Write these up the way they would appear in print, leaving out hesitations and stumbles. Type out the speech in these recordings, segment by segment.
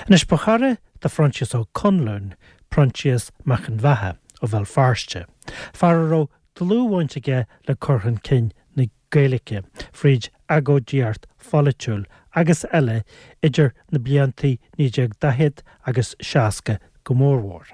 Anois, ba chara do Phroinsias Ó Conluain Proinsias Mac an Bheatha ó Bhéal Feirste, fear a raibh dlúthbhaint aige le cur chun cinn na Gaeilge fríd agóidíocht pholaitiúil agus eile idir na bliantaí 1940 agus 60 go mórmhór.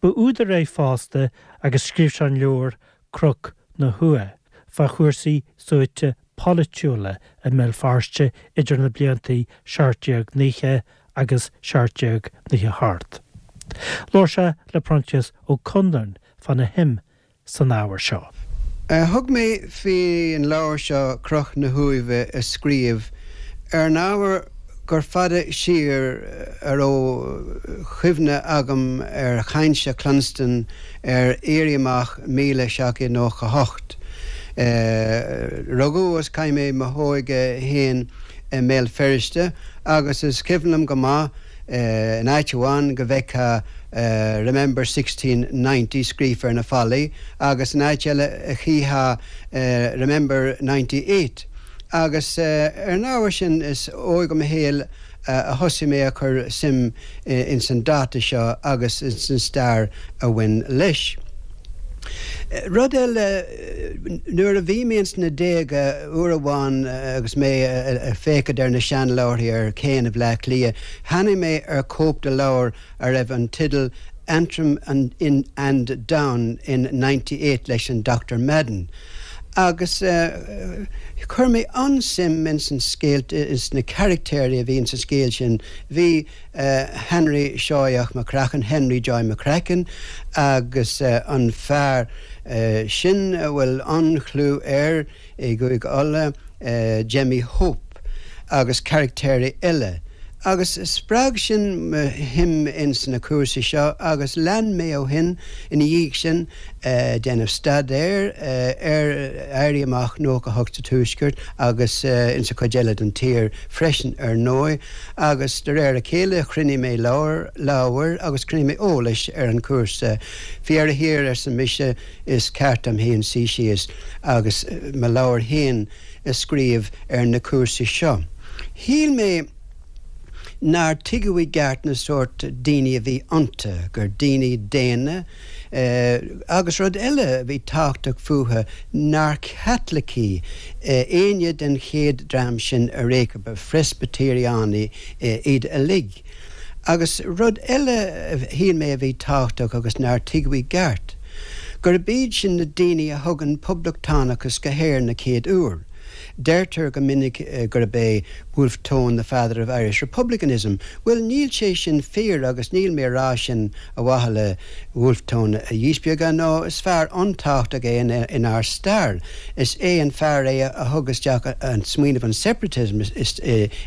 Ba údar é fosta agus scríobh sé an leabhar Cnoc na hUaimhe fá chúrsaí suaite polaitiúla i mBéal Feirste idir na bliantaí 1790 agus 1798. Labhair sé le Proinsias Ó Conluain fána shuim san ábhar seo. Thug mé faoin leabhar seo Cnoc na hUaimhe a scríobh ar an ábhar gur fada siar a raibh cuimhne agam ar chaint a chluinstin ar Éirí Amach 1798. Rugadh agus chaith mé mo hóige féin i mBéal Feirste agus is cuimhin liom go maith in áit amháin go bhfeicfeá Remember 1690 scríofa ar na fallaí agus in áit eile chífeá Remember 98. Agus ar an ábhar sin is óig i mo shaol a thosaigh mé a chur suim ins an dáta seo agus ins an stair a bhain leis. Rud eile, nuair a bhí mé ins na déaga, uair amháin agus mé ag féachaint ar na seanleabharthaí ar Chéanna Bhleá Cliath, tháinig mé ar chóip de leabhar a raibh an teideal Antrim and Down in 98 leis an Dr Madden. Agus chuir mé an-suim ins an scéal, ins na caractéirí a bhí ins an scéal sin. Bhí Henry Seoigheach McCracken, Henry Joy McCracken, agus an fear sin a bhfuil an-chlú air i gCúige Uladh, Jemmy Hope, agus caractéirí eile. Agus spreag sin mo shuim ins na cúrsaí seo agus lean mé ó shin, ina dhiaidh sin, déanamh staidéir ar Éirí Amach 98 sa Tuaisceart agus ins an chuid eile den tír freisin, ar ndóigh. Agus de réir a chéile chruinnigh mé leabhair, leabhair agus chruinnigh mé eolais ar an chúrsa. Faoi dheireadh thiar, arsa mise, is ceart dom féin suí síos agus mo leabhar féin a scríobh ar na cúrsaí seo. Shíl mé nár tuigeadh i gceart na sórt daoine a bhí iontu, gur daoine daonna, agus rud eile a bhí tábhachtach fúthu, nár Chaitlicigh éinne den chéad dream sin ar aon chor, ba Phreispitéiriánaigh iad uilig. Agus rud eile a shíl mé a bhí tábhachtach agus nár tuigeadh i gceart, gurb iad sin na daoine a thug an poblachtánachas go hÉirinn na chéad uair. Deirtear go minic gurb é Wolfe Tone the father of Irish republicanism. Bhuel, níl sé sin fíor agus níl mé a rá sin ar mhaithe le Wolfe Tone a dhíspeagadh, nó is fear an-tábhachtach é inár stair. Is é an fear é a thug isteach an smaoineamh an separatism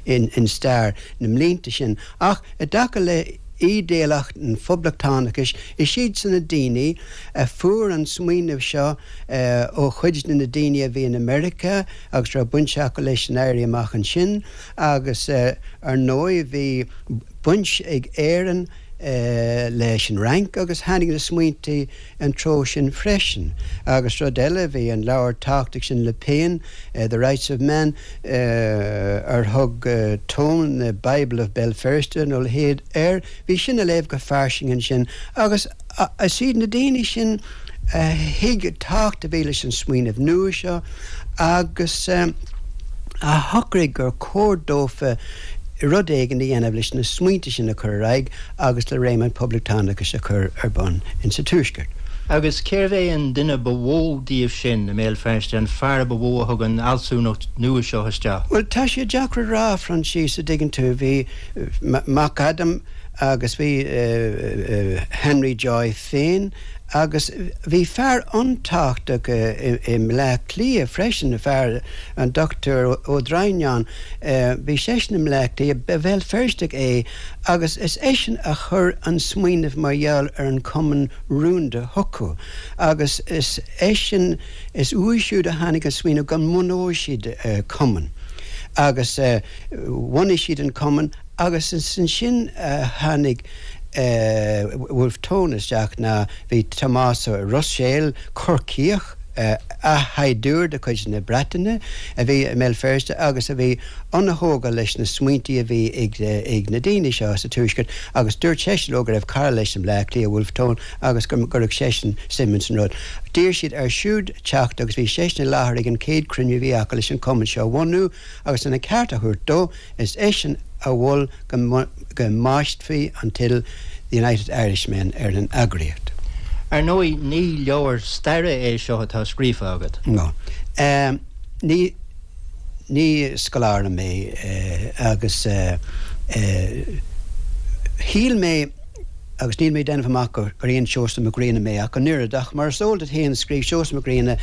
in stair na mblianta sin. Ach i dtaca le ídéalacht an phoblachtánachais, is iadsan na daoine a fuair an smaoineamh seo ó chuid de na daoine a bhí in America agus raibh baint acu leis an Éirí Amach ansin agus ar ndóigh bhí baint ag Éirinn leis an Fhrainc agus tháinig na smaointe an treo sin freisin. Agus rud eile, bhí an leabhar tábhachtach sin le Paine, The Rights of Man, ar thug Tone the Bible of Béal Feirste nó a leithéid air, bhí sin á léamh go fairsing ansin agus is iad na daoine sin a thuig an tábhacht a bhí leis an smaoineamh nua seo agus a shocraigh gur chóir dófa rud éigin a dhéanamh leis na smaointe sin a chur ar aghaidh agus le réim an phoblachtánachais a chur ar bun insa Tuaisceart. Agus cérbh é an duine ba mhó díobh sin i mBéal Feirste, an fear ba mhó a thug an fhealsúnacht nua seo isteach? Bhuel, tá sé deacair a rá, a Phroinsias, a dtuigeann tú. Bhí Mac Adaim agus bhí Henry Joy féin agus bhí fear an-tábhachtach i mBleá Cliath freisin, fear, an Dochtúir Ó Droighneáin. Bhí seisean i mBleá Cliath, ba Bhéal Feirsteach é agus is eisean a chuir an smaoineamh mar gheall ar an Chumann Rúnda chucu agus is eisean, is uaidh siúd a tháinig an smaoineamh go mbunóidh siad cumann agus bhunaigh siad an cumann agus is ansin a tháinig Wolfe Tone isteach ná bhí Tomás Ó Ruiséil, Corcaíoch. Athshaighdiúir de chuid na Breataine a bhí i mBéal Feirste agus a bhí an-thógtha leis na smaointí a bhí ag na daoine seo sa Tuaisceart agus dúirt seisean leo go raibh cara leis i mBleá Cliath, Wolfe Tone, agus go gcuirfeadh seisean suim ins an rud. D'iarr siad air siúd teacht agus bhí seisean i láthair ag an chéad chruinniú a bhí acu leis an chumann seo a bhunú agus lena cheart a thabhairt dó, is eisean a mhol go mbaistfí an teideal The United Irishmen ar an eagraíocht. Ar ndóigh, ní leabhar staire é seo atá scríofa agat. No. Ní, ní scoláire mé agus shíl mé, agus níl mé ag déanamh amach gur aon Seosamh Mac Grianna mé ach an oiread, ach mar is eol duit féin scríobh Seosamh Mac Grianna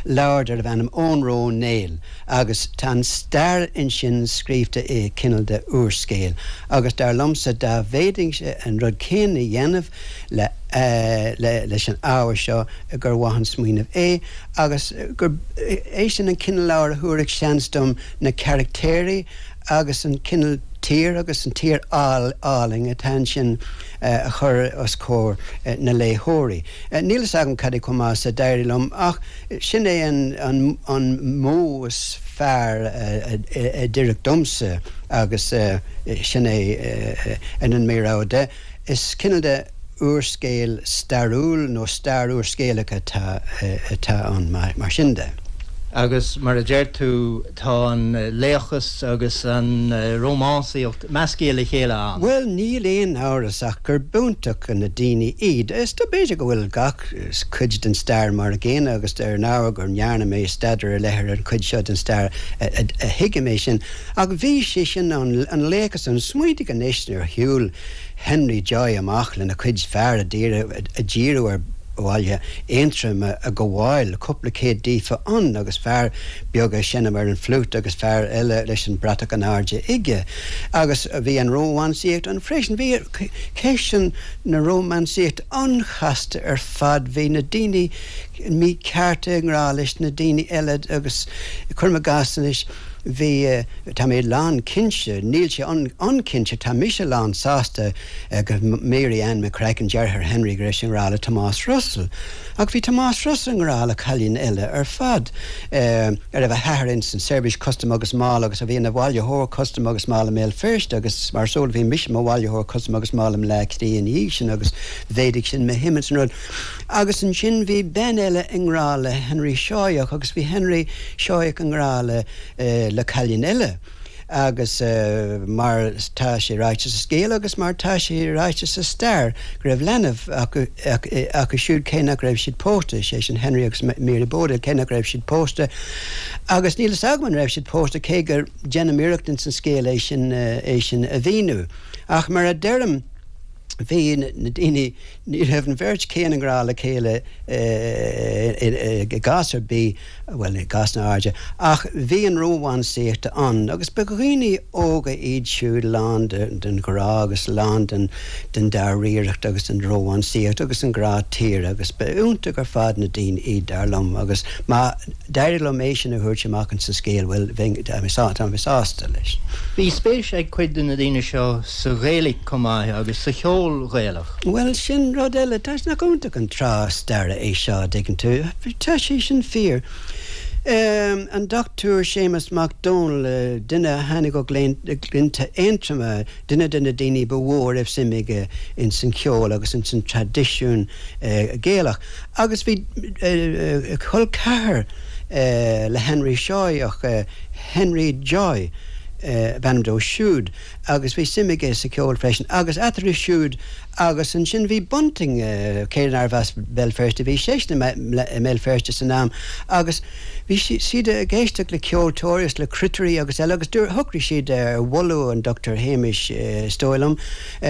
leabhar darbh ainm Eoghan Rua Ó Néill agus tá an stair ansin scríobhta i cineál de úrscéal agus dar liomsa dá bhféadfainnse an rud céanna a dhéanamh le leis an ábhar seo gur mhaith an smaoineamh é agus gurb é sin an cineál leabhair a thabharfadh seans dom na caractéirí agus an cineál tír agus an tír álainn atá ansin a chur os comhair na léitheoirí. Níl fhios agam cad é chomh maith is a d'éirigh liom ach sin é an an modh is fearr a d'oirfeadh domsa agus sin é an mo rogha de. Is cineál de úrscéal stairiúil nó stair úrscéalach atá atá ann mar sin de. Agus mar a deir tú, tá an laochas agus an rómánsaíocht measctha le chéile ann. Bhuel, níl aon amhras ach gur b'iontach na daoine iad. Is dóigh b'fhéidir go bhfuil gach cuid den stair mar a gcéanna agus ar ndóigh go ndearna mé staidéar ar leith ar an chuid seo den stair a thuigim é sin. Ach bhí sé sin ann, an laochas ann. Smaointigh anois nuair a shiúil Henry Joy amach lena chuid fear a dhíriú ar bhaile Aontroim a ghabháil, cúpla céad díofa ann agus fear beag ag seinm ar an fliúit agus fear eile leis an bratach in airde aige. Agus bhí an rómánsaíocht ann freisin. Bhí ceist na rómánsaíochta an-chasta ar fad. Bhí na daoine míchearta i ngrá leis na daoine eile agus, cuirim i gcás anois, Bhí, tá mé lán cinnte, níl sé an-chinnte, tá mise lán sásta go Mary Ann McCracken, deartháir Henry, go raibh sí i ngrá le Tomás Russell. Ach bhí Tomás Russell i ngrá le cailín eile ar fad, a raibh a hathair ins an tSeirbhís Custam agus Máil agus a bhí ina bhailitheoir custam agus máil i mBéal Feirste agus mar is eol bhí mise i mo bhailitheoir custam agus máil i mBleá Cliath ina dhiaidh sin agus mhéadaigh sin mo shuim ins an rud. Agus ansin bhí bean eile i ngrá le Henry Seoigheach agus bhí Henry Seoigheach i ngrá le le cailín eile. Agus mar tá sé ráite sa scéal agus mar tá sé ráite sa stair go raibh leanbh acu acu siúd cé nach raibh siad pósta, sé sin Henry agus Mary Bowdle, cé nach raibh siad pósta. Agus níl fhios agam an raibh siad pósta cé go déanaim iarracht ins an scéal é sin é sin a mhíniú. Ach mar a deirim bhí na daoine Ní raibh an bheirt chéanna i ngrá le chéile i gcás ar bith, bhuel, i gcásanna áirithe, ach bhí an rómánsaíocht ann agus ba dhaoine óga iad siúd lán den ghrá agus lán den dáiríreacht agus den rómánsaíocht agus an grá tíre agus ba iontach ar fad na daoine iad, dar liom, agus má d'éirigh liom é sin a thabhairt amach ins an scéal, bhuel, bheinn, tá mé sásta leis. Bhí spéis ag cuid de na daoine seo sa Ghaeilge chomh maith agus sa cheol Ghaelach. Bhuel, sin rud eile. Tá, nach iontach an tráth staire é seo, a dtuigeann tú. Tá sé sin fíor. An Dochtúir Séamus Mac Dónaill, duine a tháinig ó Ghleannta Aontroma, duine de na daoine ba mhó a raibh suim aige ins an cheol agus ins an traidisiún Gaelach. Agus bhí col ceathar le Henry Seoigheach, Henry Joy ab ainm dó siúd, agus bhí suim aige sa cheol freisin. Agus eatarthu siúd agus ansin bhí Bunting, cé nárbh as Béal Feirste, bhí seisean i mBéal Feirste san am agus bhí siad ag éisteacht le ceoltóirí agus le cruitirí agus eile agus shocraigh siad ar mholadh an Dochtúir Shéamais, is dóigh liom,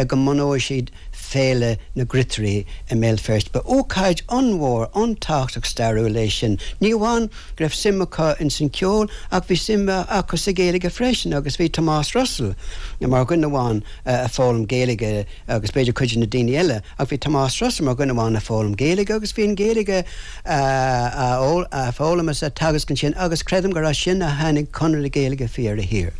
go mbunóidh siad Féile na gCruitirí i mBéal Feirste. Ba ócáid an-mhór, an-tábhachtach stairiúil é sin. Ní amháin go raibh suim acu ins an cheol ach bhí suim acu sa Ghaeilge freisin agus bhí Tomás Russell mar dhuine amháin a foghlaim Gaeilge agus b'fhéidir cuid de na daoine eile ach bhí Tomás Russell mar dhuine amháin a foghlaim Gaeilge agus bhí an Ghaeilge á foghlaim is á teagasc ansin agus creidim gur as sin a tháinig Conradh na Gaeilge faoi dheireadh thiar.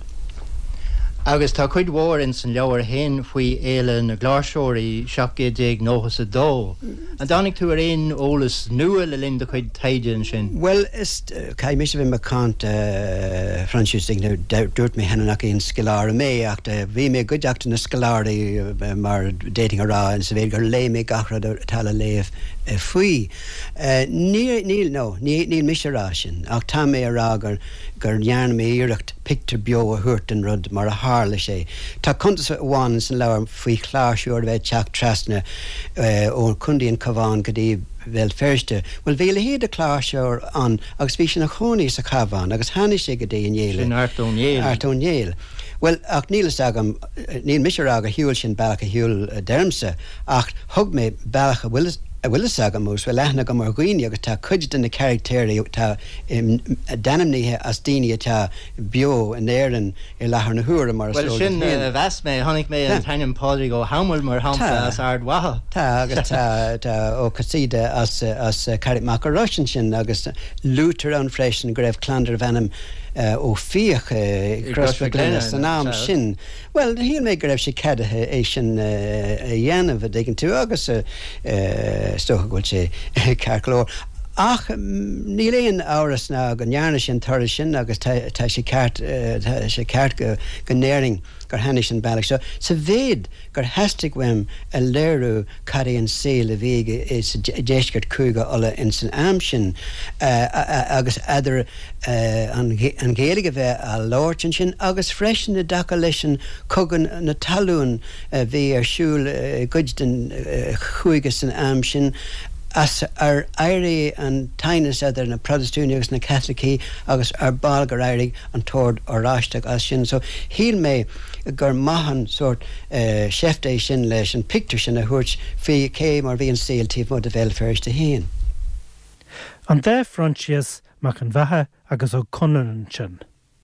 Agus tá cuid mhór ins an leabhar fhéin faoi Fhéile na gCláirseoirí 1792. An dtáinig tú ar aon eolas nua le linn do chuid taighde ansin? Bhuel, is, caithfidh mise a bheith macánta, a Phroinsias, dúirt mé cheana nach aon scoláire mé ach bhí mé i gcuideachta na scoláirí mar d'fhéadfainn a rá sa mhéid gur léigh mé gach rud atá le léamh faoi. Níl, no, níl mise a rá sin ach tá mé a rá gur gur ndearna mé iarracht pictiúr beo a thabhairt den rud mar a tharla sé. Tá cuntas amháin ins an leabhar faoi chláirseoir a bheith ag teacht trasna ó Chontae an Chabháin go dtí Béal Feirste. Bhuel, bhí a leithéid de chláirseoir ann agus bhí sé ina chónaí sa Chabhán agus tháinig sé go dtí an fhéile. Sin Art Ó Néill. Art Ó Néill. Bhuel, ach níl fhios agam, níl mise a rá gur shiúil sé an bealach a shiúil, a deirimse, ach thug mé bealach a bhfuil a bhfuil fhios agam agus bhfuil aithne agam ar dhaoine agus tá cuid de na carachtéirí atá d'ainmnithe as daoine atá beo in Éirinn i láthair na huaire, mar is eol duit féin. Bhuel, sin a mheas mé. Chonaic mé an t-ainm Pádraig Ó hAdhmaill, mar shampla, as Ard Mhacha. Tá, agus tá, tá Ó Casaide as, as Carraig Macha Rois ansin, agus luaitear ann freisin go raibh clann darbh ainm Ó Fiaich i gCrois Mhic Lionnain san am sin. Bhuel, shíl mé go raibh sé ceadaithe é sin a dhéanamh, a dtuigeann tú, agus is dócha go bhfuil sé ceart go leor. Ach níl aon amhras ná go ndearna sé an turas sin agus tá sé ceart, tá sé ceart go ndéarfainn gur tháinig sé an bealach seo. Sa mhéid gur theastaigh uaim a léiriú cad é an saol a bhí sa deisceart Chúige Uladh ins an am sin agus eadar an Ghaeilge a bheith á labhairt ansin agus freisin i dtaca leis an cogadh na talún a bhí ar siúl i gcuid den chúige san am sin as ar éirigh an t-aighneas eadar na Protastúnaigh agus na Caitlicigh agus ar ball gur éirigh an tOrd Oráisteach as sin. So shíl mé gur maith an sórt seift é sin leis an pictiúr sin a thabhairt faoi cé mar bhí an saol taobh amuigh de Bhéal Feirste féin. An dá Phroinsias Mac an Bheatha agus Ó Conluain ansin.